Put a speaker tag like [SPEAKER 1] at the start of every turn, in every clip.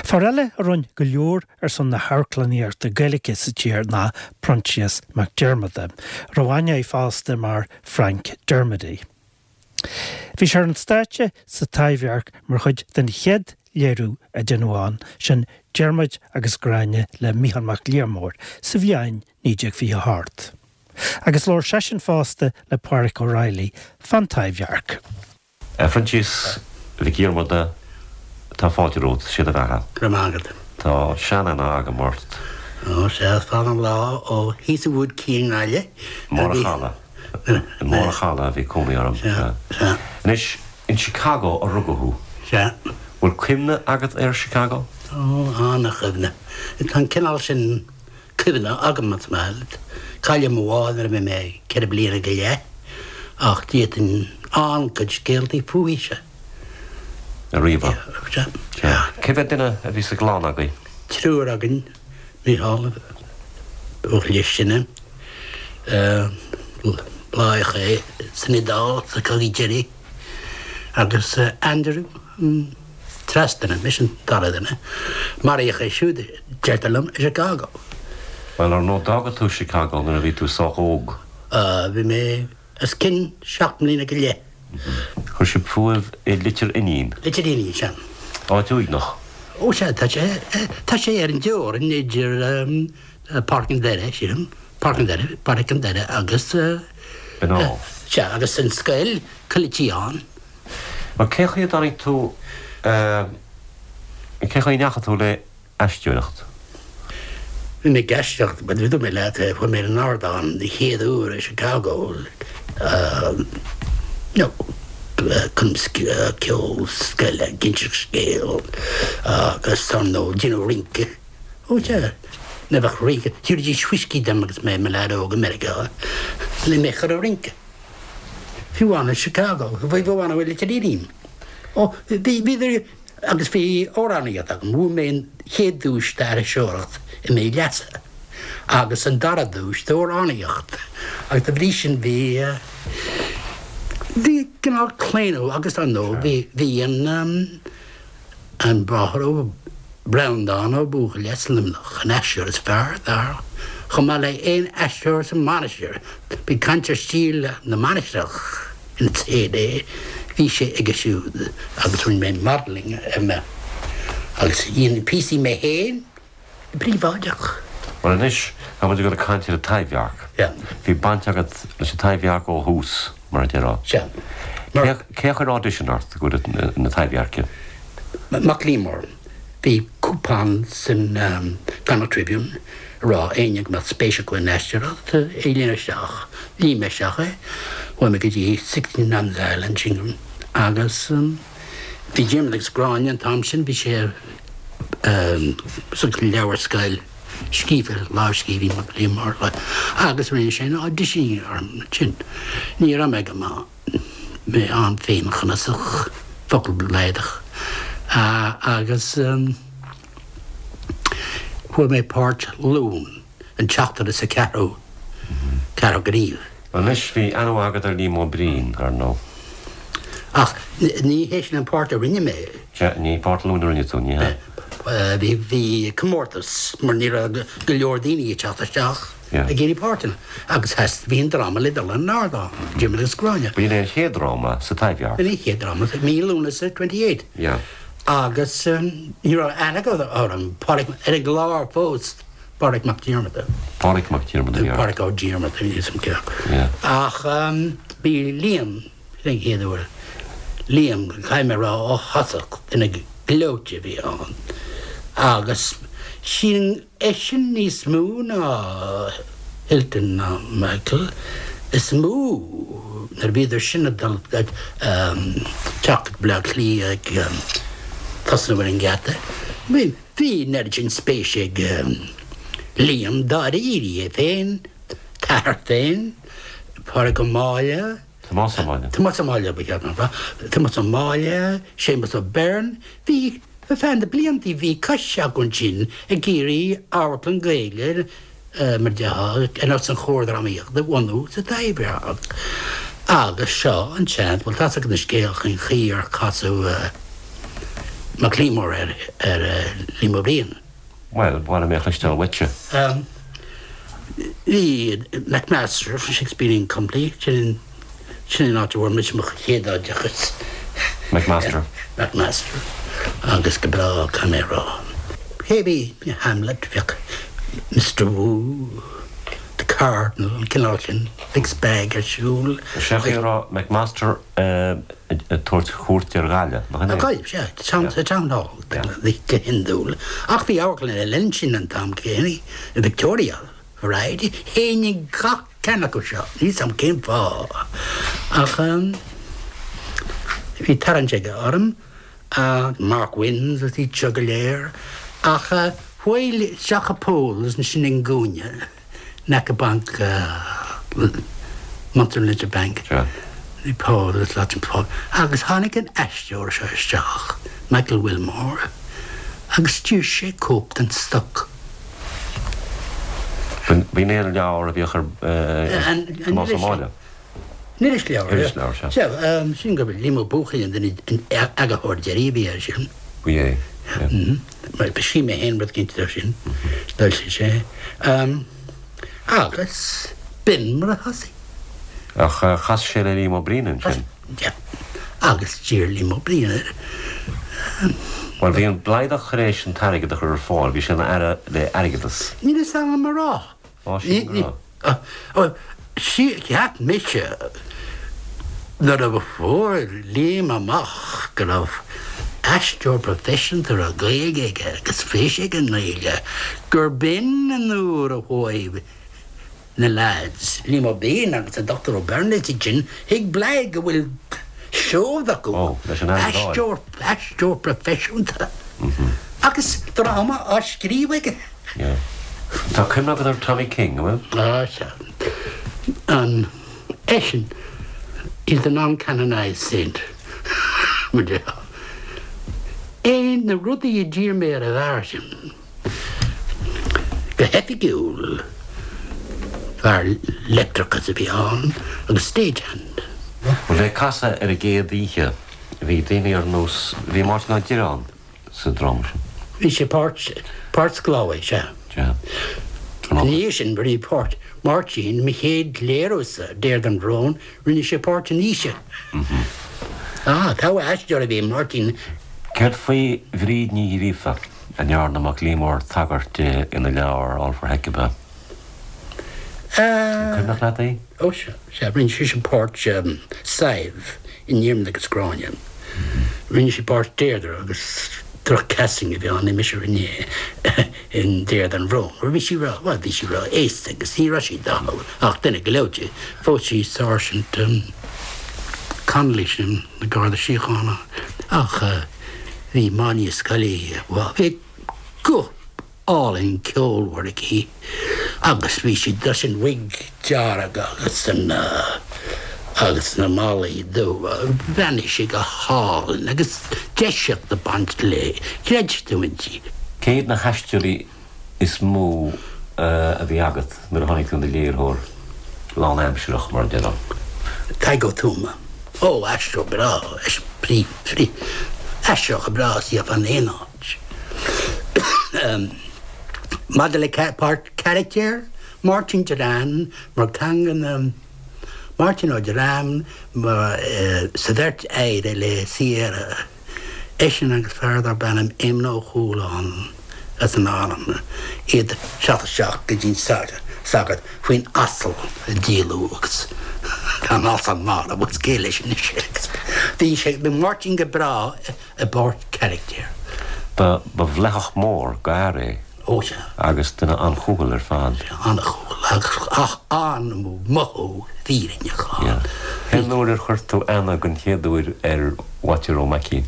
[SPEAKER 1] Fear eile a rinne go leor ar son na hamharclannaíochta Gaeilge sa tír ná Proinsias Mac Diarmada, a raibh aithne air fosta mar Frank Dermody. Bhí sé ar an stáitse sa Taibhdhearc mar chuid den chéad léiriú a deineadh ann, sin Diarmuid agus Gráinne le Mícheál Mac Liammóir sa bhliain 1928. Agus labhair seisean fosta le Pádhraic Ó Raghallaigh fán Taibhdhearc.
[SPEAKER 2] A Phroinsias Mhic Dhiarmada, tá fáilte romhat, sé do bheatha.
[SPEAKER 3] Go raibh maith agat.
[SPEAKER 2] Tá sean-aithne agam ort.
[SPEAKER 3] Ó, sea, is fada an lá ó thíos i Wood Quay i nGaillimh.
[SPEAKER 2] I mBarr a' Chalaidh. I mBarr a' Chalaidh a bhí cónaí orm.
[SPEAKER 3] Sea, sea.
[SPEAKER 2] Anois, in Chicago a rugadh thú.
[SPEAKER 3] Sea.
[SPEAKER 2] Bhfuil cuimhne agat ar Chicago?
[SPEAKER 3] Ó, an-chuimhne. Tá an cineál sin cuimhne agam, más maith leat. Cailleadh mo mháthair nuair a bhí mé 4 bliana go leith, ach d'fhéadfainn an-chuid scéaltaí fúithise
[SPEAKER 2] a ríomhadh.
[SPEAKER 3] Sea. Sea.
[SPEAKER 2] Cé mhéad duine a bhí sa gclann agaibh?
[SPEAKER 3] Triúr againn, Mícheál, an buachaill is sine, báthadh é san Iodáil sa chogadh deiridh, agus Andrew, an treas duine, mise an dara duine. Maraíodh é siúd, deirtear liom, i Chicago.
[SPEAKER 2] Bhuel, ar ndóigh, d'fhága tú Chicago nuair a bhí tú sách óg.
[SPEAKER 3] Bhí mé os cionn seacht mbliana go leith.
[SPEAKER 2] Chuir sibh fúibh i Leitir Fhínín.
[SPEAKER 3] Leitir Fhínín, sea.
[SPEAKER 2] Áit uaigneach.
[SPEAKER 3] Ó sea, tá sé, tá sé ar an dteorainn idir Páirc an Doire, sílim, Páirc an Doire, Páirc an Doire agus.
[SPEAKER 2] Binn Átha.
[SPEAKER 3] Sea, agus an scoil, Coill Tíogáin.
[SPEAKER 2] Bhuel, cén chaoi a dtáinig tú, cén chaoi a ndeachaigh tú le aisteoireacht?
[SPEAKER 3] Bhí mé ag aisteoireacht, bhuel, dúirt mé leat, chuaigh mé ar an ardán den chéad uair i Chicago, you know, chun ceol scoile, ag inseacht scéal agus ar ndóigh, déanamh rince. Ó sea, ní bheadh rince, thabharfaidís whiskey dom agus mé i mo leaid óg i Meiriceá le mé a chur ag rince. Fiú amháin i Chicago, fiú amháin i Leitir Fhínín. Ó, bhí, bhí, agus bhí amhránaíocht agam, bhuaigh mé an chéad duais d'aithriseoireacht i mí Leasa agus an dara duais d'amhránaíocht agus dá bhrí sin bhí, bhí cineál claonadh agus ar ndóigh bhí, bhí an, An Bráthair Ó Breandán Ó Buachalla as Luimneach, an aisteoir is fearr, dar, chomh maith le aon aisteoir sa Mainistir. Bhí caint ar stíl na Mainistreach in its heyday, bhí sé aige siúd agus rinne mé modelling ar mé agus dhein píosaí mé féin. Príobháideach.
[SPEAKER 2] Bhuel anois, tá muid ag dul ag caint ar an Taibhdhearc.
[SPEAKER 3] Yeah.
[SPEAKER 2] Bhí baint agat leis an Taibhdhearc ó thús, mar a déarfá.
[SPEAKER 3] Sea.
[SPEAKER 2] Mar. Cé a chuir audition ort go dtí na Taibhdheirce?
[SPEAKER 3] Mac Liammóir. Bhí cúpán san Connacht Tribune ag rá éinne go mbeadh spéis acu in aisteoireacht é a líonadh isteach. Líon mé isteach é. Chuaigh mé go dtí 16 Nun's Island, sin agus. Bhí Diarmaid agus Gráinne an t-am sin, bhí sé sa leabhar scoil scríofa, lámhscríbhinn Mac Liammóir, agus rinne sé an audition orm ansin. Ní raibh mé go maith, mé an-fhéinchneasach, focal bladach, agus fuair mé páirt Luan. an tseachtar is a ceathrú, ceathrú gníomh.
[SPEAKER 2] Anois, bhí aithne mhaith agat ar Liam Ó Brien, ar ndóigh.
[SPEAKER 3] Ach ní hé sin an páirt a rinne mé.
[SPEAKER 2] Sea, ní páirt Luain a rinne tú, ní hea?
[SPEAKER 3] Bhí, bhí comórtas mar ní raibh go leor daoine ag teacht isteach ag iarraidh páirteanna agus theastaigh, bhí an dráma le dul ar an ardán, Diarmaid agus Gráinne.
[SPEAKER 2] B'in é an chéad dráma sa Taibhdhearc.
[SPEAKER 3] B'in é an chéad dráma, mí Lúnasa 28.
[SPEAKER 2] Yeah.
[SPEAKER 3] Agus ní raibh aithne acu orm, Pádraic, ar an gclár fós. Pádraic Mac Diarmada.
[SPEAKER 2] Pádraic Mac Diarmada, yeah.
[SPEAKER 3] Pádraic Ó Diarmada, níl 'fhios a'm cé acu.
[SPEAKER 2] Yeah.
[SPEAKER 3] Ach bhí Liam, sin an chéad uair, Liam, caithfidh mé a rá ó thosach, duine gleoite a bhí ann. Agus sin eisean níos mó ná Hilton ná Michael, is mó nuair a bhíodar sin ag dul ag teacht go Baile Átha Cliath ag tosnú ar an ngeata. Bhí. Bhí an oiread sin spéise ag Liam dáiríre, é féin, t'athair féin, Pádraig Ó Máille,
[SPEAKER 2] Tomás Ó Máille.
[SPEAKER 3] Tomás Ó Máille ba cheart dom a rá, Tomás Ó Máille, Séamus Ó Beirn, bhí, ar feadh na blianta bhí coiste acu ansin ag iarraidh amharclann Gaeilge, mar a déarfá, ar nós an Chomhar Drámaíochta a bhunú sa Taibhdhearc. Agus seo an seans, bhuel tá's agat an scéal faoin chaoi ar casadh. Mac Liammóir ar ar Liam Ó Briain.
[SPEAKER 2] Bhuel, ba mhaith liom é a chloisteáil uaitse.
[SPEAKER 3] Bhí McMaster, Shakespearean Company, sin sin an áit a bhfuair mise mo chéad oideachas.
[SPEAKER 2] McMaster.
[SPEAKER 3] McMaster. Agus go breá, caithfidh mé a rá. Cé bhí Hamlet, bheadh Mr Wu, The Cardinal, an cineál sin, Mixed Bag ar siúl.
[SPEAKER 2] Sé a raibh McMaster ag tabhairt cuairt ar Ghaillimh, nach in é?
[SPEAKER 3] Gaillimh, sea, sa Town Hall, go hiondúil. Ach bhí amharclann eile ansin an t-am céanna, Victoria Variety. Théinn ag gach ceann acu seo, níl 's a'm cén fáth, ach bhí tarraingt aige orm, Mark Winne agus iad seo go léir. Ach chuaigh isteach i Paul's ansin i gcúinne. in aice banc Munster Leinster Bank. Bhí Paul is lots of Paul. Agus tháinig an aisteoir seo isteach, Michael Wilmore, agus d'iarr sé cóip den Stoc.
[SPEAKER 2] B'in é an leabhar a bhíodh ar Tomás Ó Máille.
[SPEAKER 3] An irisleabhar. Irisleabhar, sea. Sea, sin gurb é Liam Ó Buachaill an duine, an eagarthóir deiridh a bhí air sin.
[SPEAKER 2] Bhí é,
[SPEAKER 3] yeah. Mar scríobh mé féin rud éicint dó sin, d'fhoilsigh sé. Agus b'in mar a thosaigh.
[SPEAKER 2] Ach chas sé le Liam Ó Briain ansin.
[SPEAKER 3] Yeah. Agus d'iarr Liam Ó Briain air.
[SPEAKER 2] Bhuel, bhí an Blaghdach tar éis an t-airgead a chur ar fáil, bhí sé ina aire le airgeadas.
[SPEAKER 3] Níl fhios agam a rá.
[SPEAKER 2] Á, sin go
[SPEAKER 3] raibh. Cheap mise nuair a fuair Liam amach go raibh aisteoir proifisiúnta a raibh Gaeilge aige agus spéis aige i nGaeilge, gur b'in an uair a chuaigh na leaids, Liam Ó Briain agus an Dr Ó Beirn is iad sin, chuig Bladh go bhfuil seod acu, aisteoir, aisteoir proifisiúnta agus dráma á scríobh aige.
[SPEAKER 2] Yeah. Tá cuimhne agat ar Tommy King, an
[SPEAKER 3] bhfuil? Ah, sea. An eisean, he's the non-canonised saint, mar a déarfá. É na rudaí a d'iarr mé ar an bhfear sin, go hoifigiúil, fear leictreachais a bhí ann agus stagehand.
[SPEAKER 2] Bhuel, é casadh ar an gcéad oíche, bhí daoine ar nós, bhí Máirtín Ó Direáin sa dráma sin.
[SPEAKER 3] Bhí sé páirt, páirt sclábhaí, sea.
[SPEAKER 2] Sea.
[SPEAKER 3] Ina dhiaidh sin, rinne páirt Máirtín, mo chéad léiriú-sa, Deirdre an Bhrón, rinne sé páirt an Fhaoisigh. Ah, togha aisteoir a bhí i Máirtín.
[SPEAKER 2] Céard faoi Bhríd Ní Ghríofa, a ndearna Mac Liammóir tagairt di ina leabhar All for Hecuba? An cuimhneach leat í?
[SPEAKER 3] Ó sea, sea, rinne sise páirt Sadhbh in Diarmaid agus Gráinne. Rinne sí páirt Deirdre agus droch-casting a bhí ann, ní mise a rinne é in Deirdre an Bhrón. Bhí sí ró, bhuel, bhí sí ró-aosta agus ní raibh sí dathúil ach duine gleoite. Phós sí Sáirsint Connolly sin, na Garda Síochána ach bhí Máine Scully, bhuel, bhí guth álainn ceolmhar aici agus bhí sí leis an wig dearg agus an agus na malaí dubha. Bhreathnaigh sí go hálainn agus deiseacht ag baint léi. Chreid tú inti.
[SPEAKER 2] Cé hiad na haisteoirí is mó a bhí agat nuair a tháinig tú ina léiritheoir lánaimsearach, mar a déarfá?
[SPEAKER 3] Tadhg Ó Tuama. Ó, aisteoir breá, aisteoir breá is iad fan aon áit. Maidir le páirt carachtair, Máirtín Direáin mar ceann de na Máirtín Ó Direáin mar sa bheirt aire le Sierra, eisean agus fear darb ainm Éamonn Ó Cualáin as an Árainn, iad teacht isteach go dtí an sagart faoin asal a díoladh agus tá an asal marbh agus cé leis anois é agus bhí sé, bhí Máirtín go breá i bpáirt carachtair.
[SPEAKER 2] Ba bhleitheach mór d'fhear é.
[SPEAKER 3] Ó sea.
[SPEAKER 2] Agus duine an-chúthail ar fad.
[SPEAKER 3] An-chúthail agus ach an-mhothú fírinneach ann.
[SPEAKER 2] Yeah. Cén uair ar chuir tú aithne den chéad uair ar Whaitear Ó Maicín?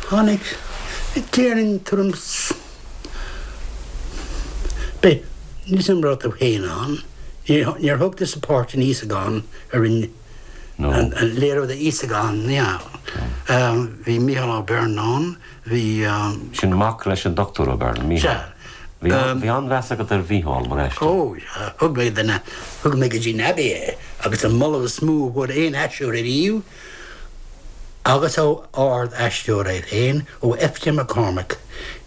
[SPEAKER 3] Tháinig, déarfainn, tuairim 's, b'é, níl 's a'm raibh tú féin ann, níor thóg tusa páirt in Íosagán a rinne An léiriú d'Íosagán, yeah. Bhí Mícheál Ó Beirn ann, bhí.
[SPEAKER 2] Sin mac leis an Dochtúir Ó Beirn, Mícheál.
[SPEAKER 3] Sea.
[SPEAKER 2] Bhí an-mheas agat ar Mhícheál mar aisteoir.
[SPEAKER 3] Ó, sea. Thug mé duine, thug mé go dtí an Abbey é agus an moladh is mó a fuair aon aisteoir ariamh. Agus ó ard-aisteoir é féin, ó F.J. McCormick.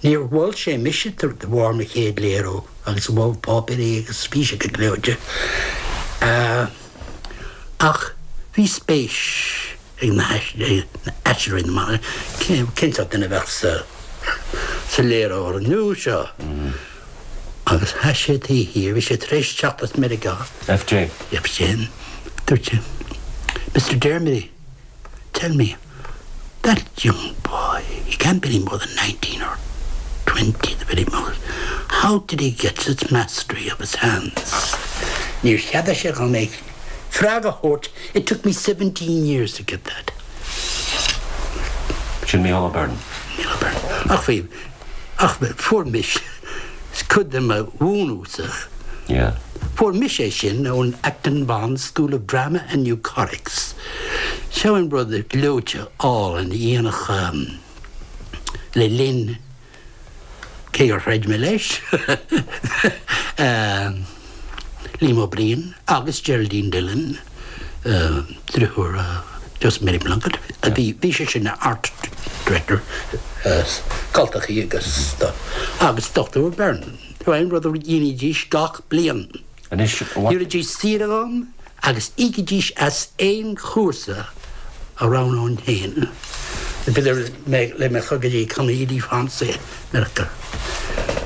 [SPEAKER 3] Níor mhol sé mise de bharr mo chéad léiriú agus mhol páipéirí agus bhí sé go gleoite. Ach bhí spéis ag na haisteoirí na mban, cén sórt duine a bheadh sa léiritheoir nua seo? Agus sheas sé taobh thiar, bhí sé tar éis teacht as Meiriceá.
[SPEAKER 2] F.J.
[SPEAKER 3] F.J. Dúirt sé, Mr Dermody, Tell me, that young boy, he can't be any more than 19 or 20 the very most, how did he get such mastery of his hands? Níor cheadaigh sé dhom é freagra a thabhairt, it took me 17 years to get that.
[SPEAKER 2] Sin Mícheál Ó Beirn.
[SPEAKER 3] Mícheál Ó Beirn. Ach bhí, ach fuair mise cuid de mo mhúineadh-sa.
[SPEAKER 2] Yeah.
[SPEAKER 3] Fuair mise é sin ón Acton Bond School of Drama and New Comics. Seo an rud gleoite álainn a dhéanfadh le linn, cé gur throid mé leis, Liam Ó Briain agus Geraldine Dillon, driotháir Joseph Mary Plunkett, a bhí, bhí sé sin ina art director, cultachaí agus stuff, agus Dr. Byrne. Seo an rud a dhéanaidís gach bliain.
[SPEAKER 2] Anois,
[SPEAKER 3] Thabharfaidís saoire dhom agus íocfaidís as aon chúrsa a roghnóinn féin. B'fhéidir le mé chur go dtí Comédie Française Meiriceá.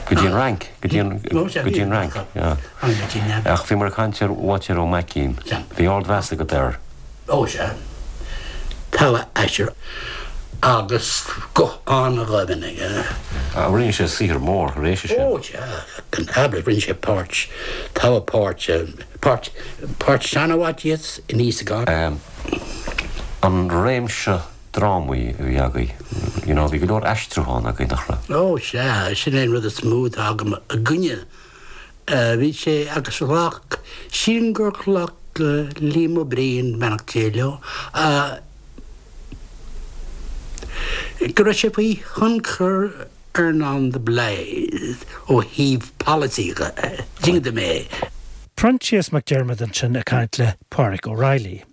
[SPEAKER 2] Go dtí an Fhrainc, go dtí an, go dtí an Fhrainc, yeah. Ach bhíomar ag caint ar Waitéar Ó Maicín. Bhí ardmheas agat air.
[SPEAKER 3] Ó sea. Togha aisteoir agus guth an-dhoimhin aige.
[SPEAKER 2] Rinne sé saothar mór tar éis sin.
[SPEAKER 3] Ó sea, gan amhras, rinne sé páirt, togha páirt, páirt, páirt seana-Mhaitias in Íosagán.
[SPEAKER 2] An réimse drámaí a bhí agaibh, you know, bhí go leor aistriúchán agaibh, nach raibh?
[SPEAKER 3] Ó sea, sin é an rud is mó atá agam i gcoinne Bhí sé agus ghlac, sílim gur ghlac Liam Ó Briain, beannacht Dé leo, go raibh sé faoi thionchar Earnán de Blaghd ó thaobh polasaí dhe. Ding mé.
[SPEAKER 1] Proinsias Mac Diarmada ansin ag caint le Pádraic O'Reilly.